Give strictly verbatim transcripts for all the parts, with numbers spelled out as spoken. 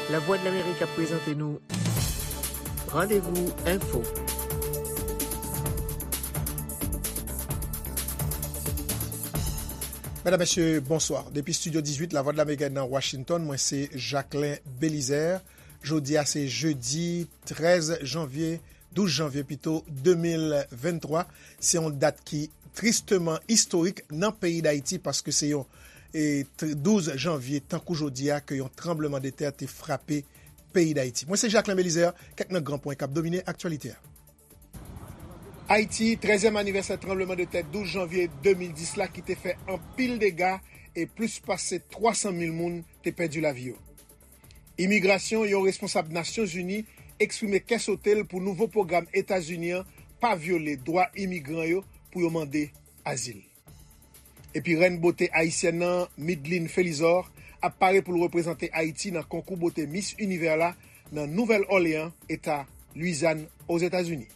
Lavwadlamerik ap prezante nou Randevou Enfo. Medam, mesye, bonswa. Depi Estidyo dizuit Lavwadlamerik nan Washington, mwen se Jacquelin Belizaire. Jodi a se jedi trèz janvye, douz janvye pito, de mil venntwa. Se yon dat ki tristeman istorik nan peyi Dayiti paske se yon, e, tr-, douz janvye, tankou jodi a, ke yon tranbleman de tè te frape peyi Dayiti. Mwen se Jacquelin Belizaire, kèk nan gran pwen k ap domine aktyalite a. Ayiti, trèzyèm anivèsè tranbleman de tè douz janvye de mil dis la ki te fè anpil dega e plis pase twa san mil moun te pèdi lavi yo. Imigrasyon, yon responsab Nasyonzini eksprime kè sote l pou nouvo pwogram Etazini an pa vyole dwa imigran yo pou yo mande azil. Epi rèn bote ayisyèn nan, Midline Felizor, ap pare pou l reprezante Ayiti nan konkou bote Miss Univers la nan Nouvèl Òleyan, eta Lwizyàn, Ozetazini.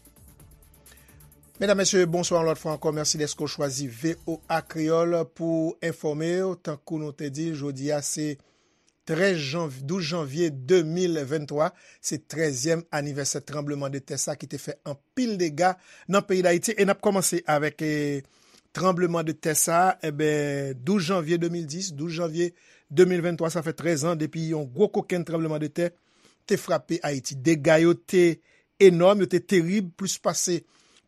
Medam, mesye, bonswa yon lòt fwa ankò. Mèsi dèske w chwazi V O A Kreyòl pou enfòme w. Tankou nou te di, jodi a se trèz janv-, douz janvye de mil venntwa, se trèzyèm anivèsè tranbleman de tè sa ki te fè anpil dega nan peyi Dayiti. E n ap kòmanse avèk, e, tranbleman de tè sa, enben, douz janvye de mil dis, douz janvye de mil venntwa, sa fè trèz an depi yon gwo kokenn tranbleman de tè te frape Ayiti. Dega yo te enòm, yo te terib, plis pase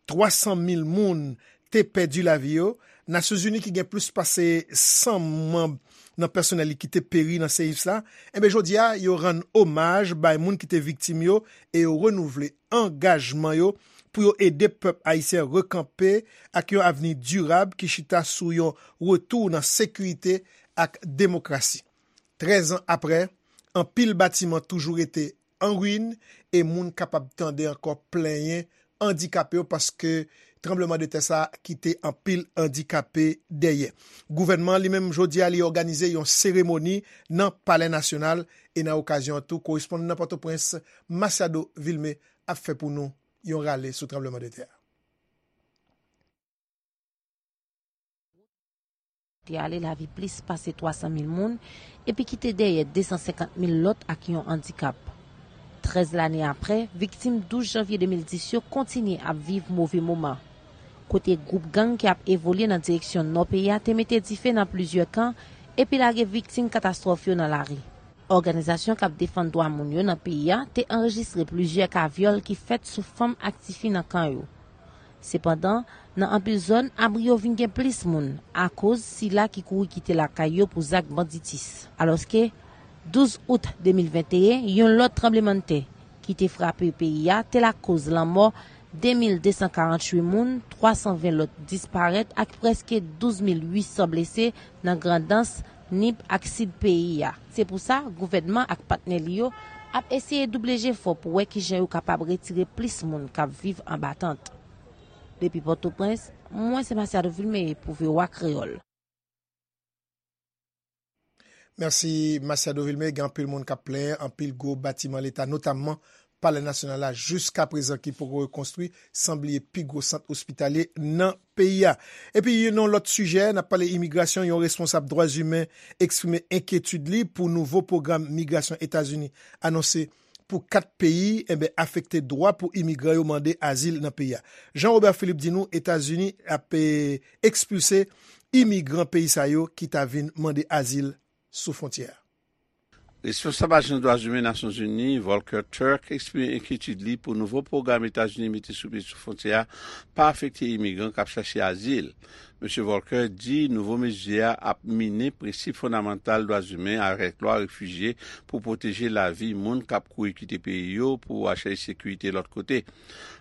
twa san mil moun te pèdi lavi yo. Nasyonzini ki gen plis pase san manm nan pèsonèl li ki te peri nan seyis la, enben, jodi a, yo rann omaj bay moun ki te viktim yo e yo renouvle angajman yo pou yo ede pèp ayisyen rekanpe ak yon avni dirab ki chita sou yon retou nan sekirite ak demokrasi. Trèz an apre, anpil batiman toujou rete an ruin e moun kapab tande ankò plenyen andikape yo paske tranbleman de tè sa kite anpil andikape dèyè. Gouvènman an li menm jodi a li òganize yon seremoni nan Palè Nasyonal e nan okazyon an tou, korespondan nan Pòtoprens, Masiado Vilmé, ap fè pou nou yon rale sou tranbleman de tè a. Te ale lavi plis pase twa san mil moun epi kite dèyè de san senkant mil lòt ak yon andikap. Trèz lane apre, viktim douz janvye de mil dis yo kontinye ap viv move moman, kote gwoup gang ki ap evolye nan direksyon nò peyi a te mete dife nan plizyè kan epi lage viktim katastwòf yo nan lari. Òganizasyon k ap defann dwa moun yo nan peyi a te anrejistre plizyè ka vyòl ki fèt sou fanm ak tifi nan kan yo. Sepandan, nan anpil zòn, abri yo vin gen plis moun, akoz sila ki kouri kite lakay yo pou zak banditis. Alòske, douz out de mil venteyen, yon lòt tranblemanntè ki te frape peyi a te lakoz lanmò de mil de san karanntuit moun, twa san ven lòt disparèt ak prèske douz mil uit san blese nan Grandans, Nip ak Sid peyi a. Se pou sa, gouvènman ak patnè li yo ap eseye double jefò pou wè kijan yo kapab retire plis moun k ap viv anba tant. Depi Pòtoprens, mwen se Masiado Vilmé pou V O A Kreyòl. Mèsi, Masiado Vilmé. Gen anpil moun k ap plenyen, anpil gwo batiman Leta, notamman Palè Nasyonal la, jiskaprezan ki poko rekonstwi, san bliye pi gwo sant ospitalye nan peyi a. Epi, nan yon lòt sijè, n ap pale imigrasyon, yon responsab dwa imen eksprime enkyetid li pou nouvo pwogram migrasyon Etazini anonse pou kat peyi, enben, afekte dwa pou imigran yo mande azil nan peyi a. Jean Robert Philippe di nou Etazini ap, e, ekspilse imigran peyi sa yo ki ta vin mande azil sou fwontyè a. Responsab Ajans Dwa Imen Nasyonzini, Volker Turk, eksprime enkyetid li pou nouvo pwogram Etazini mete sou pye sou fwontyè a pa afekte imigran k ap chache azil. Mesye Volker di nouvo mezi a ap minen prensip fondamantal dwa imen avèk lwa refijye pou pwoteje lavi moun k ap kouri kite peyi yo pou al chèche sekirite lòt kote.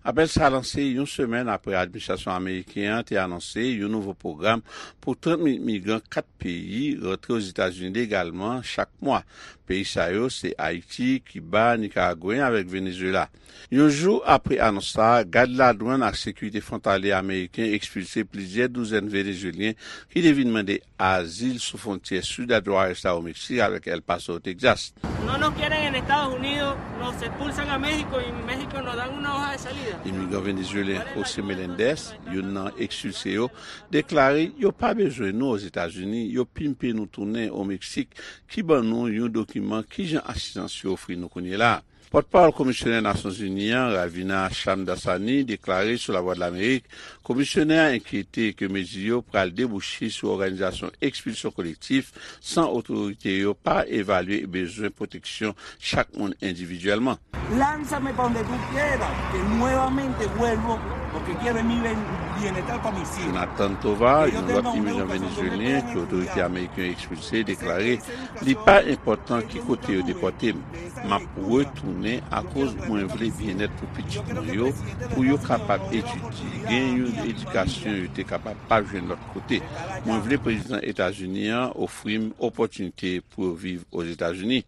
Apèl sa lanse yon semèn apre administrasyon ameriken an te anonse yon nouvo pwogram pou trant mil migran kat peyi rantre Ozetazini legalman chak mwa. Peyi sa yo se Ayiti, Kiba, Nikaragwen avèk Venezuela. Yon jou apre anons sa a, gad ladwann ak sekirite fwontalye ameriken ekspilse plizyè douzèn Venezuelyen ki te vin mande azil sou fwontyè sid a Juárez la o Meksik avèk El Paso, Texas. No nos quieren en Estados Unidos, nos expulsan a México y México nos dan una hoja de salida. Imigran venezuelyen José Meléndez, youn nan ekspilse yo, deklare yo pa bezwen nou Ozetazini, yo pimpe nou tounen o Meksik ki ban nou yon dokiman kijan asistans yo ofri nou kounye la. Pòtpawòl Komisyonè Nasyonzini an, Ravina Shamdasani, deklare sou Lavwadlamerik, Komisyonè a enkyete ke mezi yo pral debouche sou òganizasyon ekspilsyon kolektif san otorite yo pa evalye bezwen pwoteksyon chak moun endividyèlman. Lánzame pa donde tú quieras, que nuevamente vuelvo, porque quiero mi bienestar para mis hijos. Jonathan Tovar, yon lòt imigran venezuelyen ke otorite ameriken yo ekspilse, deklare li pa enpòtan ki kote yo depòte m. M ap retounen akoz mwen vle byennèt pou pitit mwen yo, pou yo kapab etidye, gen yon edikasyon yo te kapab pa jwenn lòt kote. Mwen vle prezidan Etazini an ofri m opòtinite pou yo viv Ozetazini.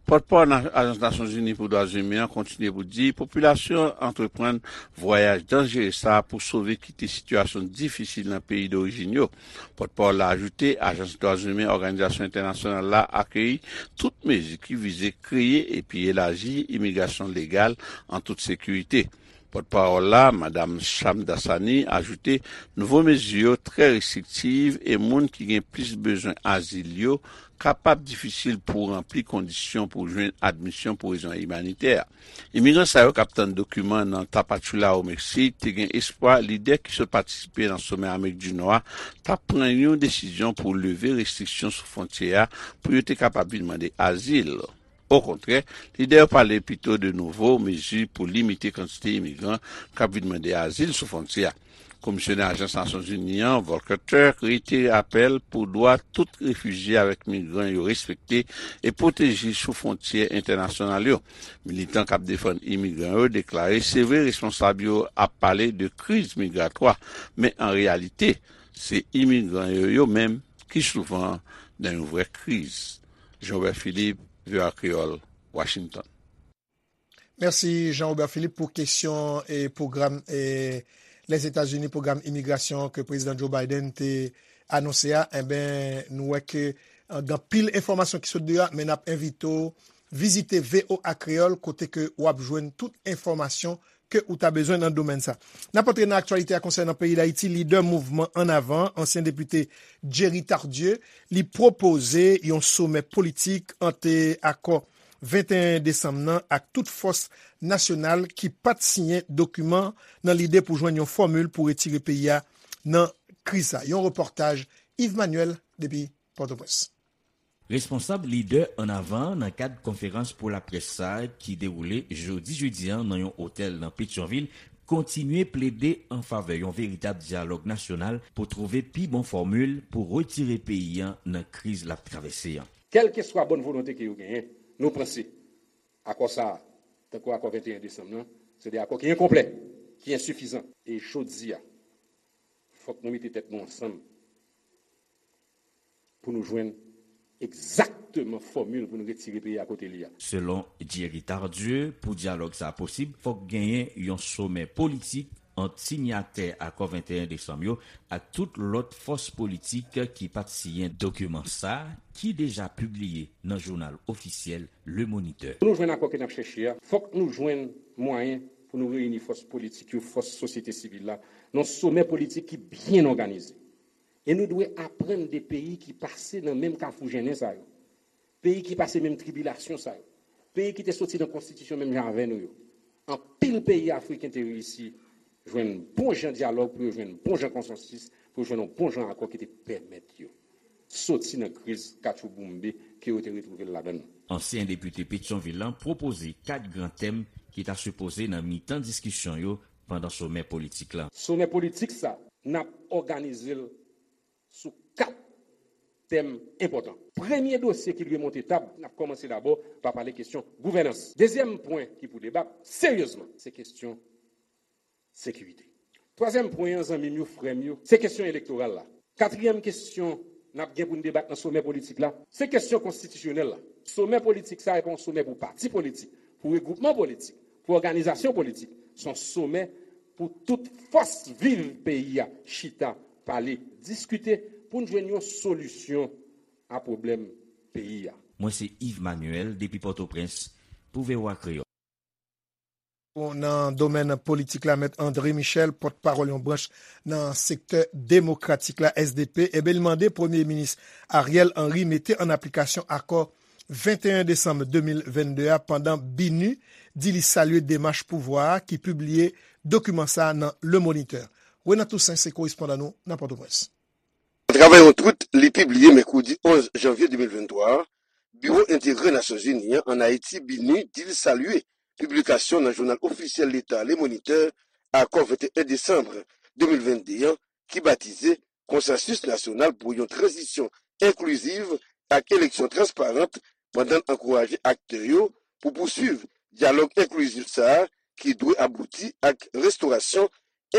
Pòtpawòl Ajans Nasyonzini pou Dwa Imen an kontinye pou di popilasyon an antreprann vwayaj danjere sa a pou sove kite sitiyasyon difisil nan peyi dorijin yo. Pòtpawòl la ajoute, Ajans Dwa Imen Òganizasyon Entènasyonal la akeyi tout mezi ki vize kreye epi elaji imigrasyon legal an tout sekirite. Pòtpawòl la, Madam Shamdasani, ajoute, nouvo mezi yo trè restriktiv e moun ki gen plis bezwen azil yo kapab difisil pou ranpli kondisyon pou jwenn admisyon pou rezon imanitè. Imigran sa yo k ap tann dokiman nan Tapachula o Meksik te gen espwa lidè ki sot patisipe nan somè Amerik di Nò a t ap pran yon desizyon pou leve restriksyon sou fwontyè a pou yo te kapab vin mande azil. Okontrè, lidè yo pale pito de nouvo mezi pou limite kantite imigran k ap vin mande azil sou fwontyè a. Komisyonè Ajans Nasyonzini an, Volker Turk, reitere apèl pou dwa tout refijye avèk migran yo respekte e pwoteje sou fwontyè entènasyonal yo. Militan k ap defann imigran yo deklare se vre responsab yo ap pale de kriz migratwa, men an reyalite, se imigran yo yo menm ki souvan nan yon vrè kriz. Jean Robert Philippe, V O A Kreyòl, Washington. Mèsi Jean Robert Philippe pou kesyon e pwogram e Lèzetazini, pwogram imigrasyon ke Prezidan Joe Biden te anonse a. Enben, nou wè ke gen anpil enfòmasyon ki sot deyò a, men n ap envite w vizite V O A Kreyòl kote ke w ap jwenn tout enfòmasyon ke ou ta bezwen nan domèn sa. N ap antre nan aktyalite a konsènan peyi Dayiti. Lidè mouvman Ann Avan, ansyen depite Jerry Tardieu, li pwopoze yon somè politik ant akò venteyen desanm nan ak tout fòs nasyonal ki pa t siyen dokiman nan lide pou jwenn yon fòmil pou retire peyi a nan kriz sa. Yon repòtaj Yves Manuel depi Pòtoprens. Responsab Lidè Ann Avan nan kad konferans pou laprès sa a ki dewoule jodi jedi a nan yon otèl nan Petyonvil kontinye plede an favè yon veritab dyalòg nasyonal pou twouve pi bon fòmil pou retire peyi a nan kriz l ap travèse an. Kèlkeswa bòn volonte ke yo genyen, nou panse akò sa a, tankou akò venteyen desanm nan, se de akò ki enkonplè, ki ensifizan. E jodi a, fòk nou mete tèt nou ansanm pou nou jwenn egzakteman fòmil pou nou retire peyi a kote li a. Selon Jerry Tardieu, pou dyalòg sa a posib, fòk genyen yon somè politik ant sinyatè akò venteyen desanm yo ak tout lòt fòs politik ki pa t siyen dokiman sa a ki deja pibliye nan jounal ofisyèl Le Moniteur. Pou nou jwenn akò ke n ap chèche a, fòk nou jwenn mwayen pou nou reyini fòs politik yo, fòs sosyete sivil la, nan somè politik ki byen òganize. E nou dwe aprann de peyi ki pase nan menm kafou jennen sa yo, peyi ki pase menm tribilasyon sa yo, peyi ki te soti nan konstitisyon menm jan avè nou yo. Anpil peyi afriken te reyisi jwenn bon jan dyalòg pou yo jwenn bon jan konsansis, pou yo jwenn yon bon jan akò ki te pèmèt yo soti nan kriz katchouboumbe ke yo te retwouve l ladan l. Ansyen depite Petyonvil lan pwopoze kat gran tèm ki ta sipoze nan mitan diskisyon yo pandan somè politik la. Somè politik sa, n ap òganize l sou kat tèm enpòtan. Premye dosye ki dwe monte tab, n ap kòmanse dabò pa pale kesyon gouvènans. Dezyèm pwen ki pou debat seryezman, se kesyon sekirite. Twazyèm pwen an, zanmi m yo, frè m yo, se kesyon elektoral la. Katriyèm kesyon n ap gen pou n debat nan somè politik la, se kesyon konstitisyonèl la. Somè politik sa a pa yon somè pou pati politik, pou regwoupman politik, pou òganizasyon politik. Se yon somè pou tout fòs viv peyi a chita Pale, diskite pou n jwenn yon solisyon a pwoblèm peyi a. Mwen se Yves Manuel depi Pòtoprens pou V O A Kreyòl. Nan domèn politik la, Mèt André Michel, pòtpawòl yon branch nan sektè demokratik la, S D P, ebyen, li mande Premye Minis Ariel Henry mete an aplikasyon akò venteyen desanm de mil vennde a, pandan BINUH di li salye demach pouvwa a ki pibliye dokiman sa a nan Le Moniteur. Renan Toussaint se korespondan nou nan Pòtoprens. Atravè yon twit li pibliye mèkredi onz janvye de mil venntwa a, Biwo Enterè Nasyonzini an ann Ayiti, BINUH, di l salye piblikasyon nan jounal ofisyèl leta Le Moniteur akò venteyen desanm de mil vennde an, ki batize Konsansis Nasyonal pou yon Tranzisyon Enkliziv ak Eleksyon Transparant, pandan l ankouraje aktè yo pou pouswiv dyalòg enklizif sa a ki dwe abouti ak restorasyon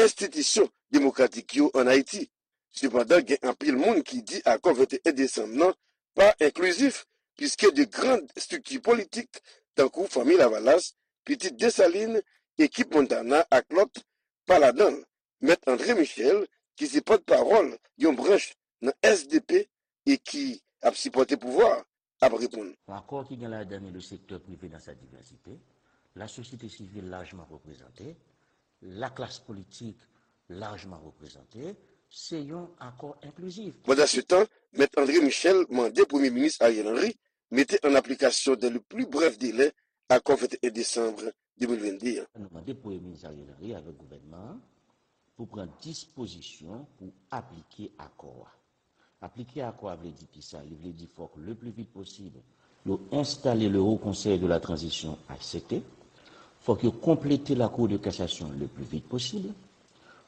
enstitisyon demokratik yo ann Ayiti. Sepandan, gen anpil moun ki di akò venteyen desanm nan pa enklizif, piske de gran estrikti politik, tankou Fanmi Lavalas, Pitit Desalin, Ekip Montana ak lòt, pa ladan l. Mèt André Michel, ki se pòtpawòl yon branch nan S D P e ki ap sipòte pouvwa a, ap reponn. Yon akò ki gen ladan li le sektè prive dans sa diversité, lasosyete sivil lajman reprezante, laklas politik lajman reprezante, se yon akò enklizif. Pandansetan, Mèt André Michel mande Premye Minis Ariel Henry mete an aplikasyon dans le plus bref délai akò venteyen desanm de mil vennde an. Nou mande Premye Minis Ariel Henry avèk gouvènman an pou pran dispozisyon pou aplike akò a. Aplike akò a vle di kisa? Li vle di fòk le pli vit posib yo enstale le Haut Conseil de la Transition, H C T. Fòk yo konplete la Cour de Cassation le pli vit posib.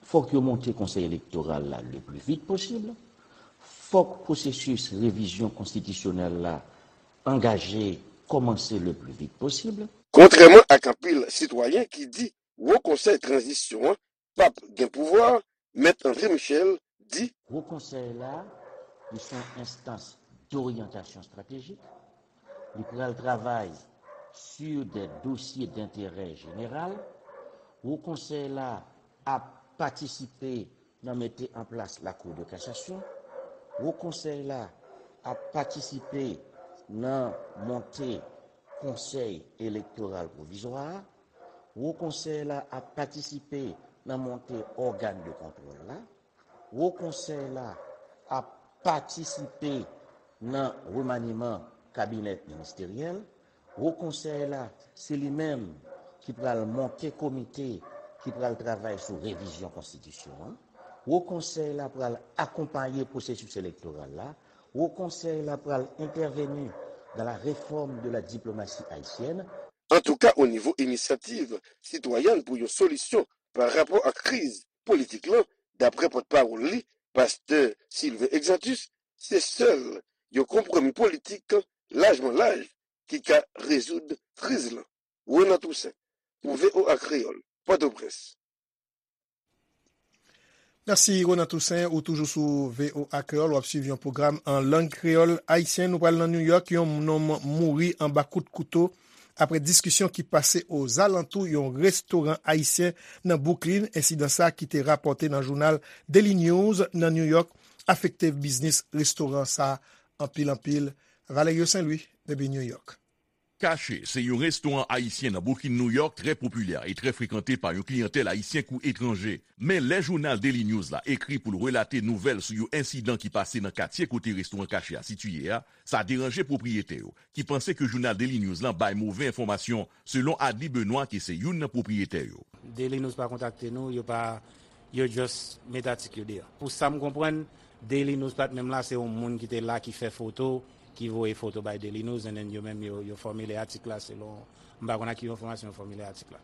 Fòk yo monte Konsèy Elektoral la le pli vit posib. Fòk pwosesis revizyon konstitisyonèl la angaje, kòmanse le pli vit posib. Kontrèman ak anpil sitwayen ki di Wo Konsèy Tranzisyon an p ap gen pouvwa, Mèt André Michel di. Wo Konsèy la, li se yon enstans doryantasyon estratejik. Li pral travay sur des dossiers d'intérêt général. Wo Konsèy la ap patisipe nan mete an plas Lakou de Kasasyon. Wo Konsèy la ap patisipe nan monte Konsèy Elektoral Pwovizwa a. Wo Konsèy la ap patisipe nan monte ògàn de kontwòl la. Wo Konsèy la ap patisipe nan remaniman kabinè ministeryèl. Wo Konsèy la, se li menm ki pral monte komite ki pral travay sou revizyon konstitisyon an. Wo Konsèy la pral akonpaye pwosesis elektoral la. Wo Konsèy la pral entèveni dans la réforme de la diplomatie haïtienne. Antouka, o nivo inisyativ sitwayèn pou yon solisyon pa rapò ak kriz politik lan, daprè pòtpawòl li, pastè Sylvain Exantus, se sèl yon konpwomi politik lajman laj ki ka rezoud kriz lan. Renan Toussaint, pou V O A Kreyòl, Pòtoprens. Mèsi, Ronan Toussaint. Ou toujou sou V O A Kreyòl, w ap swiv yon pwogram an lang kreyòl ayisyen. Nou pral nan New York. Yon nonm mouri anba kout kouto apre diskisyon ki pase ozalantou yon restoran ayisyen nan Brooklyn. Ensidan sa a ki te rapòte nan jounal Daily News nan New York afekte biznis restoran sa a anpil, anpil. Valerio Saint Louis, depi New York. Caché se yon restoran ayisyen nan Brooklyn, New York, trè popilè e trè frekante pa yon kliyantèl ayisyen kou etranje. Men lè jounal Daily News la ekri pou l relate nouvèl sou yon ensidan ki pase nan katye kote restoran Caché a sitiye a, sa deranje pwopriyetè yo, ki panse ke jounal Daily News lan bay move enfòmasyon, selon Adly Benoît, ki se youn nan pwopriyetè yo. Daily News pa kontakte nou, yo pa, yo just met atik yo deyò. Pou sa m konprann, Daily News pa t menm la, se yon moun ki te la ki fè foto, ki voye foto bay Daily News, and then yo menm yo, yo fòmile atik la selon, m pa konn ak ki enfòmasyon yo fòmile atik la.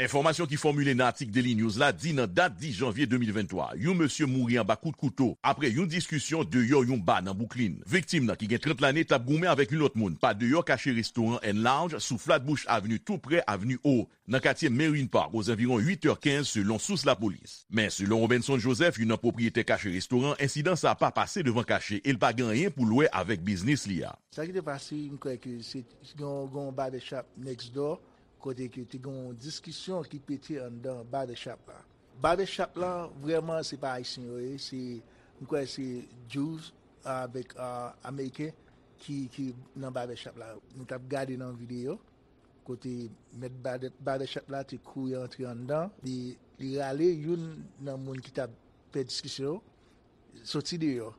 Enfòmasyon ki fòmile nan atik Daily News la di nan dat dis janvye de mil venntwa, yon mesye mouri anba kout kouto apre yon diskisyon deyò yon ba nan Brooklyn. Viktim nan ki gen trant lane t ap goumen avèk yon lòt moun pa deyò Caché Restaurant and Lounge sou Flatbush Avenue, tou prè Avni O, nan katye Marine Park, ozanviwon uit è kenz, selon sous lapolis. Men, selon Robenson Joseph, youn nan pwopriyetè Caché Restaurant, ensidan sa a pa pase devan Caché e l pa gen anyen pou l wè avèk biznis li a. Sa ki te pase, m kwè ke se gen yon, gen yon barbershop next door, kote ke te gen yon diskisyon ki pete anndan barbershop la. Barbershop lan, vrèman, se pa Ayisyen yo ye, se, m kwè se Jews avèk, ah, Ameriken ki, ki nan barbershop la. Nou t ap gade nan videyo, kote mèt barbe-, barbershop la te kouri antre anndan, li, li rale youn nan moun ki t ap fè diskisyon yo, soti deyò.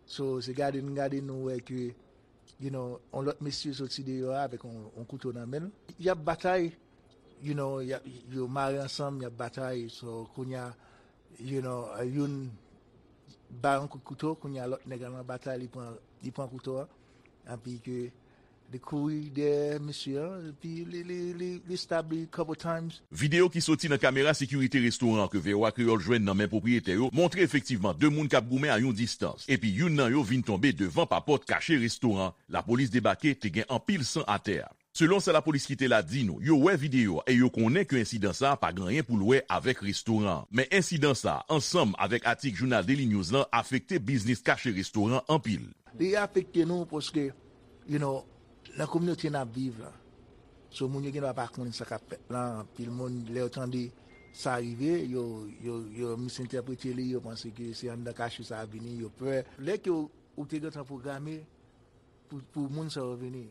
So, se gade n gade nou wè ke, you know, yon lòt mesye soti deyò a avèk yon, yon kouto nan men l. Y ap batay, you know, y ap, yo mare ansanm, y ap batay. So, kounye a, you know, youn ba yon kout kouto, kounye a lòt nèg la nan batay, li pran, li pran kouto a. Anpi ke li kouri dèyè mesye a, epi li, li, li, li stab li couple times. Videyo ki soti nan kamera sekirite restoran an ke V O A Kreyòl jwenn nan men pwopriyetè yo montre efektivman de moun k ap goumen a yon distans, epi youn nan yo vin tonbe devan papòt kache restoran an. Lapolis debake, te gen anpil san atè a. Selon sa lapolis ki te la di nou, yo wè videyo a e yo konnen ke ensidan sa a pa gen anyen pou l wè avèk restoran an. Men ensidan sa a, ansanm avèk atik jounal Daily News lan, afekte biznis kache restoran an anpil. Li afekte nou paske, you know, nan kominote n ap viv la. So, moun yo gendwa pa konn sa k ap fèt la. Anpil moun, lè yo tande sa rive, yo, yo, yo misentèprete li, yo panse ke se anndan kache sa a vini, yo pè. Lè ke ou, ou te gentan pwograme pou, pou moun sa yo vini,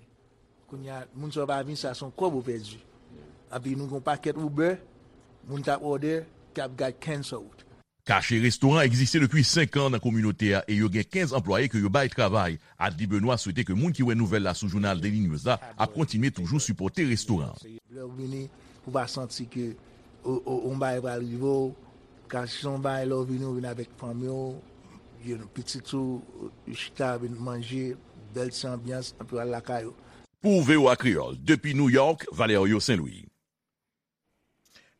kounye a, moun sa yo pa vini, sa se yon kòb ou pèdi. Anpi nou gen yon pakèt Uber, moun k ap òdè, k ap got cancelled. Kache restoran egziste depi senk an nan kominote a e yo gen kenz anplwaye ke yo bay travay. Adly Benoît swete ke moun ki wè nouvèl la sou jounal Daily News la ap kontinye toujou sipòte restoran an. Lè w vini, pou w pa santi ke o, o, yon bagay pral rive w, ka si yon bagay lè w vini, w vin avèk fanmi w, you know, pitit ou, yo chita, vin manje, bèl ti anbyans, anpi w al lakay ou. Pou V O A Kreyòl, depi New York, Valerio Saint-Louis.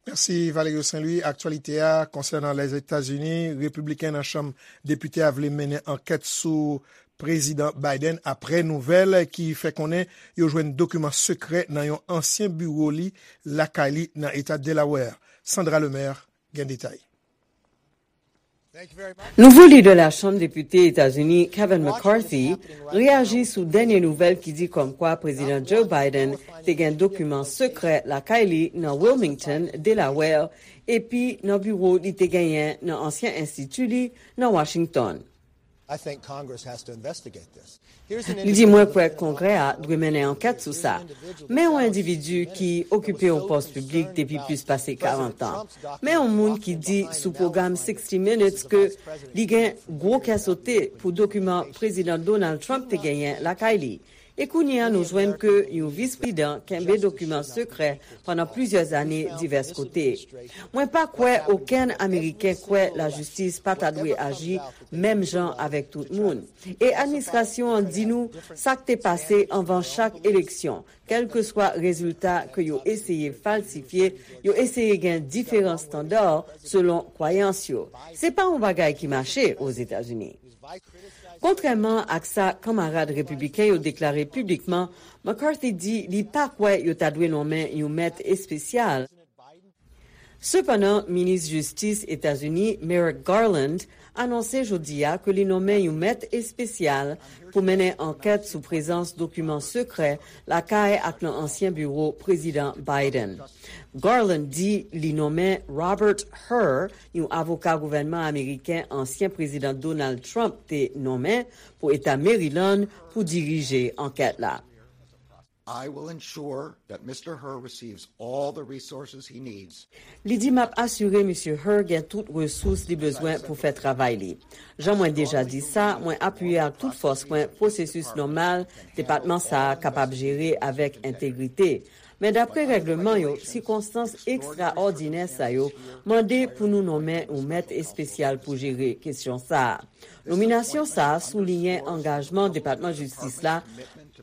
Mèsi Valerio Saint-Louis. Aktyalite a konsènan Lèzetazini, repibliken nan Chanm Depite a vle mennen ankèt sou Prezidan Biden apre nouvèl ki fè konnen yo jwenn dokiman sekrè nan yon ansyen biwo li lakay li nan eta Delaware. Sandra Lemaire gen detay. Nouvo lidè Lachanm Depite Etazini, Kevin McCarthy, reyaji sou dènye nouvèl ki di kòmkwa Prezidan Joe Biden te gen dokiman sekrè lakay li nan Wilmington, Delaware, epi nan biwo li te genyen nan ansyen enstiti li nan Washington. Li di, mwen kwè Kongrè a dwe mennen ankèt sou sa. Men yon endividi ki okipe yon pòs piblik depi plis pase karant an. Men yon moun ki di sou pwogram sixty Minutes ke li gen gwo kè sote pou dokiman Prezidan Donald Trump te genyen lakay li. E kounye a nou jwenn ke yon vis prezidan kenbe dokiman sekrè pandan plizyè zane divès kote. Mwen pa kwè okenn Ameriken kwè lajistis pa ta dwe aji menm jan avèk tout moun. E administrasyon an di nou sa k te pase anvan chak eleksyon, kèlkeswa rezilta ke yo eseye falsifye, yo eseye gen diferan estanda selon kwayans yo. Se pa yon bagay ki mache Ozetazini. Kontrèman ak sa kanmarad repibliken yo deklare piblikman, McCarthy di li pa kwè yo ta dwe nonmen yon mèt espesyal. Sepandan, minis jistis Etazini, Merrick Garland, anonse jodi a ke li nonmen yon mèt espesyal pou mennen ankèt sou prezans dokiman sekrè lakay ak nan ansyen biwo Prezidan Biden. Garland di li nonmen Robert Hur, yon avoka gouvènman ameriken ansyen Prezidan Donald Trump te nonmen pou Eta Maryland, pou dirije ankèt la. I will ensure that Mister Hur receives all the resources he needs. Li di, m ap asire Misye Hur gen tout resous li bezwen pou fè travay li. Jan mwen deja di sa, mwen apiye ak tout fòs mwen pwosesis nòmal depatman sa a kapab jere avèk entegrite. Men dapre règleman yo, sikonstans ekstraòdinè sa yo mande pou nou nonmen yon mèt espesyal pou jere kesyon sa a. Nominasyon sa a souliyen angajman Depatman Jistis la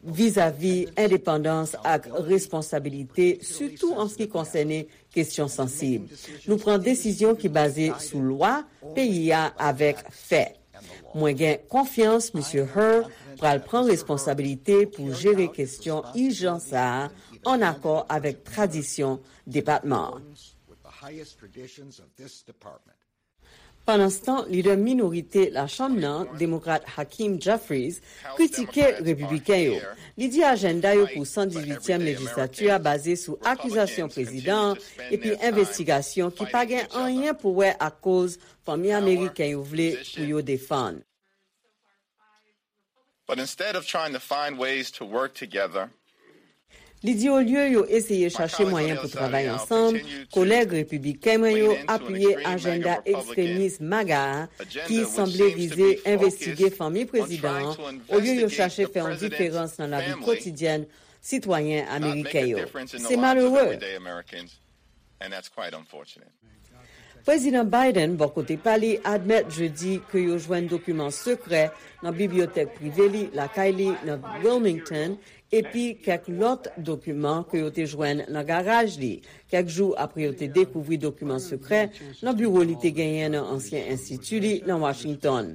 vizavi endepandans ak responsabilite, sitou an se ki konsène kesyon sansib. Nou pran desizyon ki baze sou lwa peyi a avèk fè. Mwen gen konfyans Misye Hur pral pran responsabilite pou jere kesyon ijan sa a an akò avèk tradisyon depatman an. Pandanstan, lidè minorite Lachanm nan, Demokrat Hakeem Jeffries, kritike Repibliken yo. Li di ajanda yo pou san dizuityèm lejislati a baze sou akizasyon prezidan an epi envestigasyon ki pa gen anyen pou wè ak koz fanmi ameriken yo vle pou yo defann. But instead of trying to find ways to work together, Li di olye yo eseye chache mwayen pou travay ansanm, kolèg repibliken mwen yo apiye ajanda ekstremis MAGA a ki sanble vize envestige fanmi prezidan an, olye yo chache fè yon diferans nan lavi kotidyèn sitwayen ameriken yo. Se malere. And that's quite unfortunate. Prezidan Biden, bò kote pa li, admèt jedi ke yo jwenn dokiman sekrè nan bibliyotèk prive li lakay li nan Wilmington, epi kèk lòt dokiman ke yo te jwenn nan garaj li, kèk jou apre yo te dekouvri dokiman sekrè nan biwo li te genyen nan ansyen enstiti li nan Washington.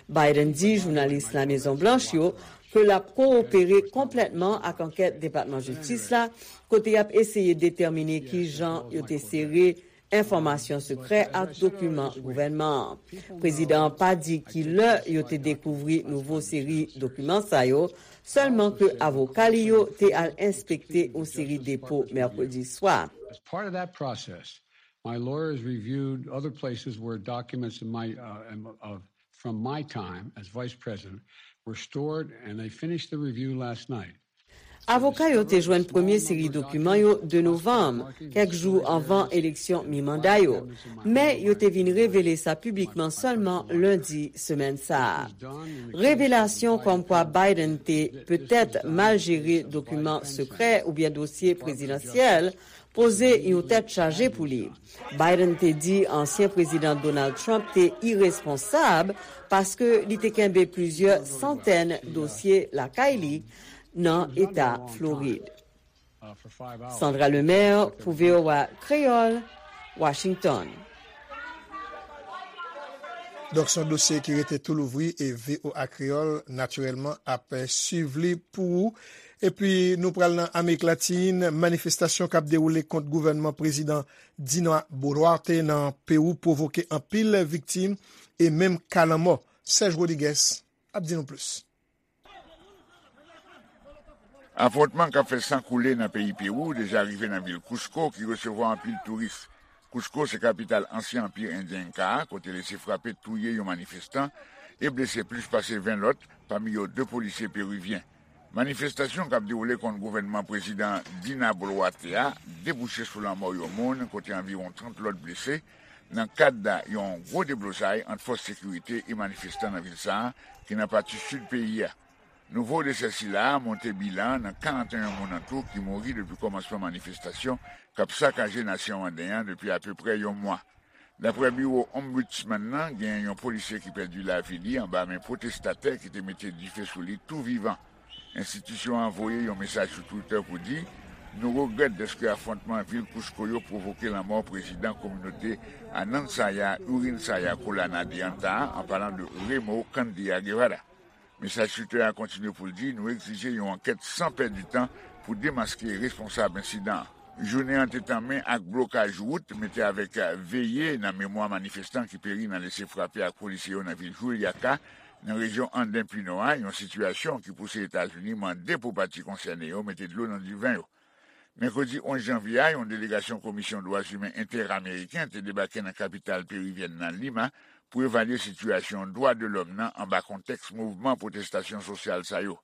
Biden di jounalis Lamezon Blanch yo ke l ap kowopere konplètman ak ankèt Depatman Jistis la, kote y ap eseye detèmine ki jan yo te sere enfòmasyon sekrè ak dokiman gouvènman an. Prezidan an pa di ki lè yo te dekouvri nouvo seri dokiman sa yo, sèlman ke avoka li yo te al enspekte yon seri depo mèkredi swa. As part of that process, my lawyers reviewed other places where documents in my, uh, em- of, from my time as vice president were stored, and they finished the review last night. Avoka yo te jwenn premye seri dokiman yo de novanm, kèk jou anvan eleksyon mi-manda yo. Men yo te vin revele sa piblikman sèlman lendi semèn sa a. Revelasyon kòmkwa Biden te petèt mal jere dokiman sekrè oubyen dosye prezidansyèl poze yon tèt chaje pou li. Biden te di ansyen prezidan Donald Trump te iresponsab paske li te kenbe plizyè santèn dosye lakay li nan eta Florid. Sandra Lemaire pou V O A Kreyòl, Washington. Donk, se yon dosye ki rete tou louvri e V O A Kreyòl, natirèlman, ap swiv li pou ou. Epi, nou pral nan Amerik Latin. Manifestasyon k ap dewoule kont gouvènman prezidan Dina Boluarte nan Pewou pwovoke anpil viktim e menm ka lanmò. Serge Rodriguez ap di nou plis. Afwontman k ap fè san koule nan peyi Pewou deja rive nan vil Cusco, ki resevwa anpil touris. Cusco se kapital ansyen Anpi Endyen Enka a, kote lese frape touye yon manifestan e blese plis pase ven lòt, pami yo de polisye perivyen. Manifestasyon k ap dewoule kont gouvènman prezidan Dina Boluarte a debouche sou lanmò yon moun, kote anviwon trant lòt blese, nan kad yon gwo deblozay ant fòs sekirite e manifestan nan vil sa a, ki nan pati sid peyi a. Nouvo desè sila a monte bilan an nan karanteyen moun antou ki mouri depi kòmansman manifestasyon k ap sakaje nasyon anden an depi apeprè yon mwa. Daprè biwo Ombudsman nan, gen yon polisye ki pèdi lavi li anba men pwotestatè ki te mete dife sou li tou vivan. Enstitisyon an voye yon mesaj sou Twitter pou di, nou regrèt dèske afwontman vil Cusco yo pwovoke lanmò prezidan kominote Anansaya Urinsaya Colana de Anta a, an palan de Remo Candia Guevara. Mesaj Twitter a kontinye pou l di, nou egzije yon ankèt san pèdi tan pou demaske responsab ensidan an. Jounen an te tanmen ak blokaj wout, mete avèk veye nan memwa manifestan ki peri nan lese frape ak polisye yo nan vil Juliaca, nan rejyon Anden Pinò a, yon sitiyasyon ki pouse Etazini mande pou pati konsène yo mete dlo nan diven yo. Mèkredi onz janvye a, yon delegasyon Komisyon Dwa Imen Entèameriken te debake nan kapital perivyèn nan, Lima, pou evalye sitiyasyon dwa de lòm nan anba kontèks mouvman pwotestasyon sosyal sa yo.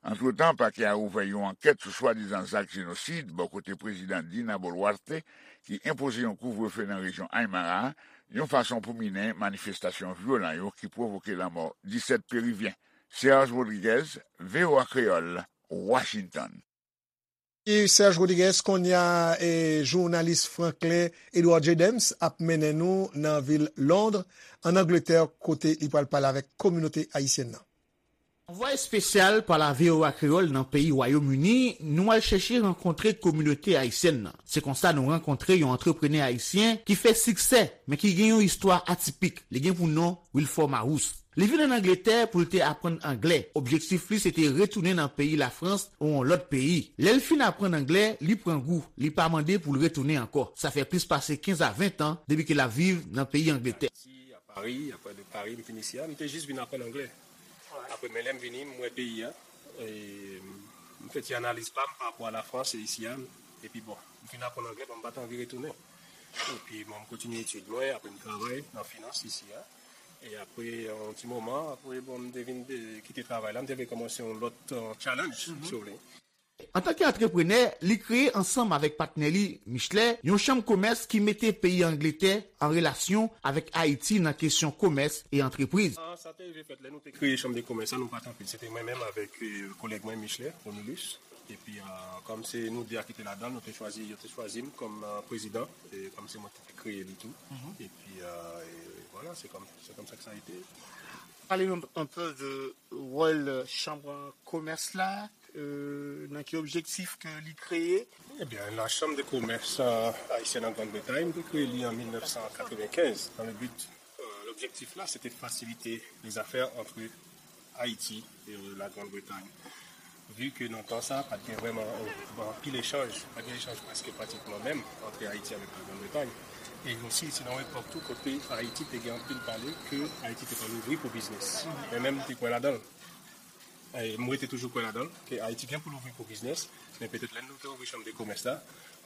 Antretan, pakè a ouvè yon ankèt sou swadizan zak jenosid bò kote prezidan Dina Boluarte, ki enpoze yon kouvrefe nan rejyon Aymara a, yon fason pou minen manifestasyon vyolan yo ki pwovoke lanmò disèt perivyen. Serge Rodriguez, V O A Kreyòl, Washington. E Serge Rodriguez, kounye a, e, jounalis Franklin Edouard J. Dems ap mennen nou nan vil Londres, ann Angletè, kote li pral pale avèk kominote ayisyèn nan. Anvwaye espesyal pa la V O A Kreyòl nan peyi Wayòm Ini, nou al chèche rankontre kominote ayisyèn nan. Se konsa nou rankontre yon antreprenè ayisyen ki fè siksè, men ki gen yon istwa atipik. Li gen pou non Wilfort Marous. Li vin ann Angletè pou l te aprann anglè. Objektif li se te retounen nan peyi Lafrans ou yon lòt peyi. Lè l fin aprann anglè, li pran gou, li pa mande pou l retounen ankò. Sa fè plis pase kenz a ven tan depi ke l ap viv nan peyi Angletè. Pari, apre de Pari, m vin isi a, m te jis vin aprann anglè. Apre, men lè m vini, m wè peyi a, e m fè ti analiz pa m pa rapò a Lafrans e isi a, epi bon, m fin aprann anglè, bon, m pa t anvi retounen. Epi, bon, m kontinye etid mwen, apre m travay nan finans isi a. E apre yon ti moman, apre, bon, m te vin de, kite travay la, m te vle kòmanse yon lòt, euh, challenge, si w vle. Antanke antreprenè, li kreye ansanm avèk patnè li, Michelet, yon chanm komès ki mete peyi Angletè an relasyon avèk Ayiti nan kesyon komès e antrepriz. Ah, sa te rive fèt lè nou te kreye chanm de komès la, nou pa t anpil. Se te mwen menm avèk, euh, kolèg mwen, Michelet Romulus. Epi, euh, kòm se nou de a ki te ladan l, nou te chwazi, yo te chwazi m kòm, euh, prezidan, e kòm se mwen ki te kreye li tou. Epi, euh, e vwala, se kòm, se kòm sa ke sa a ete. Pale nou un peu de wòl chanm komès la, euh, nan ki objektif ke li kreye. Ebyen, la Chambre de Commerce, euh, Haïtienne en Grande-Bretagne, m te kreye li an mil nèf san katrevenkenz, dans le but, euh, l'objectif là, c'était de faciliter les affaires entre Haïti et, euh, la Grande-Bretagne. Vu que nan tan sa, pa t gen vrèman, euh, anpil echanj, pa t gen echanj prèske pratikman menm entre Haïti avec la Grande-Bretagne. E osi, se nan yon epòk tou kote Ayiti te gen anpil pale ke Ayiti te pral ouvri pou biznis. Mwen menm, m te kwè ladan l. E m rete toujou kwè ladan l, ke Ayiti gen pou l ouvri pou biznis, men petèt lè nou te ouvri chanm de komès la,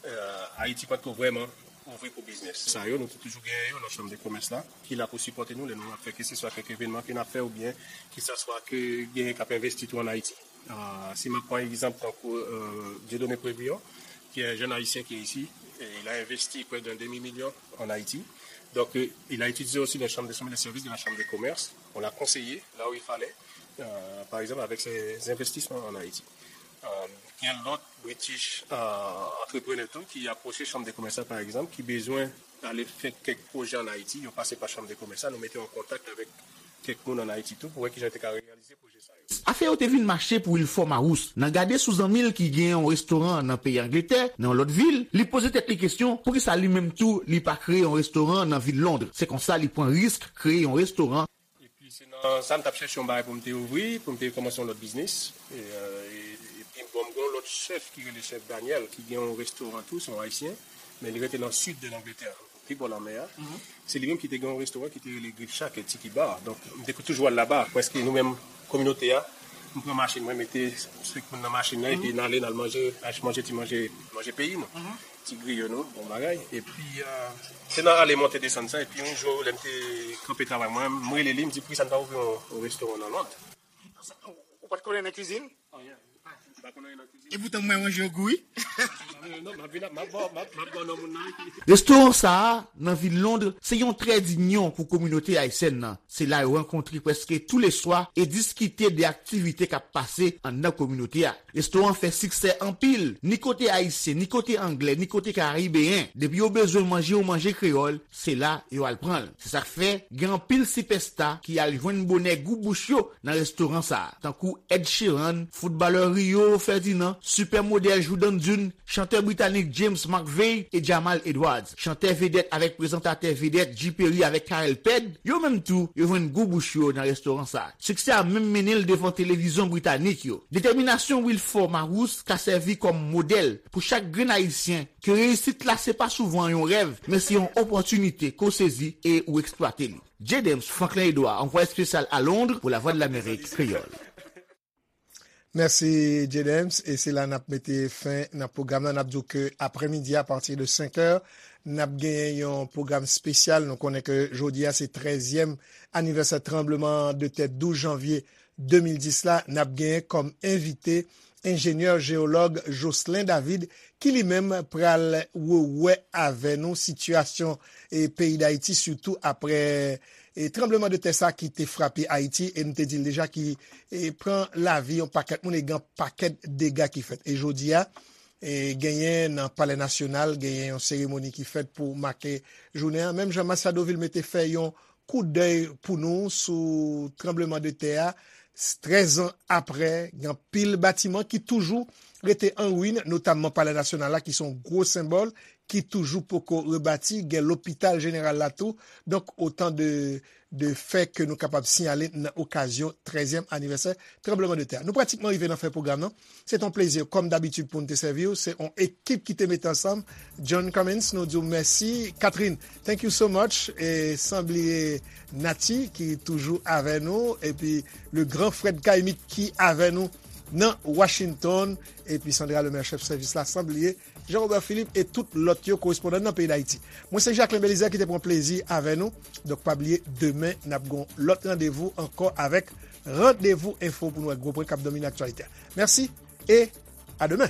euh, Ayiti pa t ko vrèman ouvri pou biznis. Sa yo, nou te toujou genyen yo nan chanm de komès la, ki la pou sipòte nou lè nou ap fè keseswa kèk evènman ke n ap fè oubyen keseswa ke genyen k ap envesti tou ann Ayiti. Ah, si m ap pran egzanp tankou, euh, Dieudonné Prévion, qui est un jeune Haïtien qui est ici, et il a investi près d'un demi-million en Haïti. Donc, euh, il a utilisé aussi les chambres de, les services de la Chambre de commerce. On l'a conseillé là où il fallait, euh, par exemple avec ses investissements en Haïti. Euh, gen lòt British, euh, entrepreneur tou ki apwoche chanm de komès la, par exemple, ki bezwen ale fè kèk pwojè ann Ayiti, yo pase pa chanm de komès la, nou mete yo an kontak avèk kèk moun ann Ayiti tou pou wè kijan yo te ka reyalize pwojè sa yo. Afè yo te vin mache pou Wilfort Marouz. Nan gade sou zanmi l ki gen yon restoran nan peyi Angletè, nan yon lòt vil, li poze tèt li kesyon poukisa li menm tou li pa kreye yon restoran nan vil Lond. Se konsa li pran risk kreye yon restoran. Epi se nan sa m t ap chèche yon bagay pou m te ouvri, pou m te kòmanse yon lòt biznis. E, euh, e, epi bon, m gen yon lòt chèf ki rele chèf Daniel, ki gen yon restoran tou, se yon Ayisyen, men li rete nan sid de Langletè, pi bò lanmè a. Se li menm ki te gen yon restoran ki te rele Grill Shack e Tiki Bar. Donk, m te toujou al laba. Prèske nou menm, kominote a, m pran machin mwen, mete senk moun nan machin nan, epi n ale, n al manje, al manje ti manje, manje peyi nou. Ti griyo nou, bon bagay. Epi, euh, se nan ale monte desann sa, epi yon jou, lè m te kanpe travay mwen, m rele li, m di, poukisa n pa ouvri yon, yon restoran nan Lond? Ou pa t konnen nan kizin? M pa konnen nan kizin. E poutan mwen manje yo gou wi. Non, m ap vin ap, m ap ba w, m ap, m ap ba w non moun nan. Restoran sa a, nan vil Lond, se yon trè dinyon pou kominote ayisyèn nan. Se la yo rankontre prèske touleswa e diskite de aktivite k ap pase anndan kominote a. Restoran fè siksè anpil, ni kote ayisyen, ni kote anglè, ni kote karibeyen. Depi yo bezwen manje yon manje kreyòl, se la yo al pran l. Se sa k fè, gen anpil sipèsta ki al jwenn bonè gou bouch yo nan restoran sa a, tankou Ed Sheeran, foutbalè Rio Ferdinand, sipè modèl Jourdan Dunn, chantè britanik James McVey e Jamal Edwards, chantè vedèt avèk prezantatè vedèt G Perry avèk Carel Ped, yo menm tou, yo jwenn gou bouch yo nan restoran sa a. Siksè a menm mennen l devan televizyon britanik yo. Detèminasyon Wilfort Marouz ka sèvi kòm modèl pou chak grenn ayisyen ke reyisit la se pa souvan yon rèv, men se yon opòtinite ke w sezi e ou eksplwate li. J. Dems, Franklin Edouard, anvwaye espesyal a Lond pou Lavwadlamerik Kreyòl. Mèsi, J. Dems. E se la n ap mete fen nan pwogram nan. N ap di w ke aprèmidi, apati de senk è, n ap genyen yon pwogram espesyal. Nou konnen ke jodi a se trèzyèm anivèsè tranbleman de tè douz janvye de mil dis la. N ap genyen kòm envite enjenyè jeyològ Jocelyn David, ki li menm pral wè avè nou sitiyasyon e peyi Dayiti, sitou aprè e tranbleman de tè sa ki te frape Ayiti, e m te di l deja ki e pran lavi yon pakèt moun e gen pakèt dega ki fèt. E jodi a, e genyen nan Palè Nasyonal, genyen yon seremoni ki fèt pou make jounen an. Menm jan Machado Vilmé te fè yon koudèy pou nou sou tranbleman de tè a, trèz an aprè, gen anpil batiman ki toujou rete an ruin, notamman Palè Nasyonal la, ki se yon gwo senbòl, ki toujou poko rebati, gen lopital jeneral la tou. Donk, otan de, de fè ke nou kapab siyale nan okazyon trèzyèm anivèsè tranbleman de tè. Nou pratikman rive nan fen pwogram nan. Se t on plezi, kòm dabitid, pou n te sèvi w. Se on ekip ki te mete ansanm. John Cummins, nou di w mèsi. Catherine, thank you so much. E san bliye Nati, ki toujou avè nou. Epi le grand Fred Caïmic ki avè nou nan Washington. Epi Sandra Lemaire, chèf sèvis la, san bliye Jean Robert Philippe e tout lòt yo, korespondan nan peyi Dayiti. Mwen se Jacquelin Belizaire ki te pran plezi avè nou. Donk, pa bliye, demen, n ap gen lòt randevou ankò avèk Randevou Enfo pou nou wè gwo pwen k ap domine aktyalite a. Mèsi e a demen.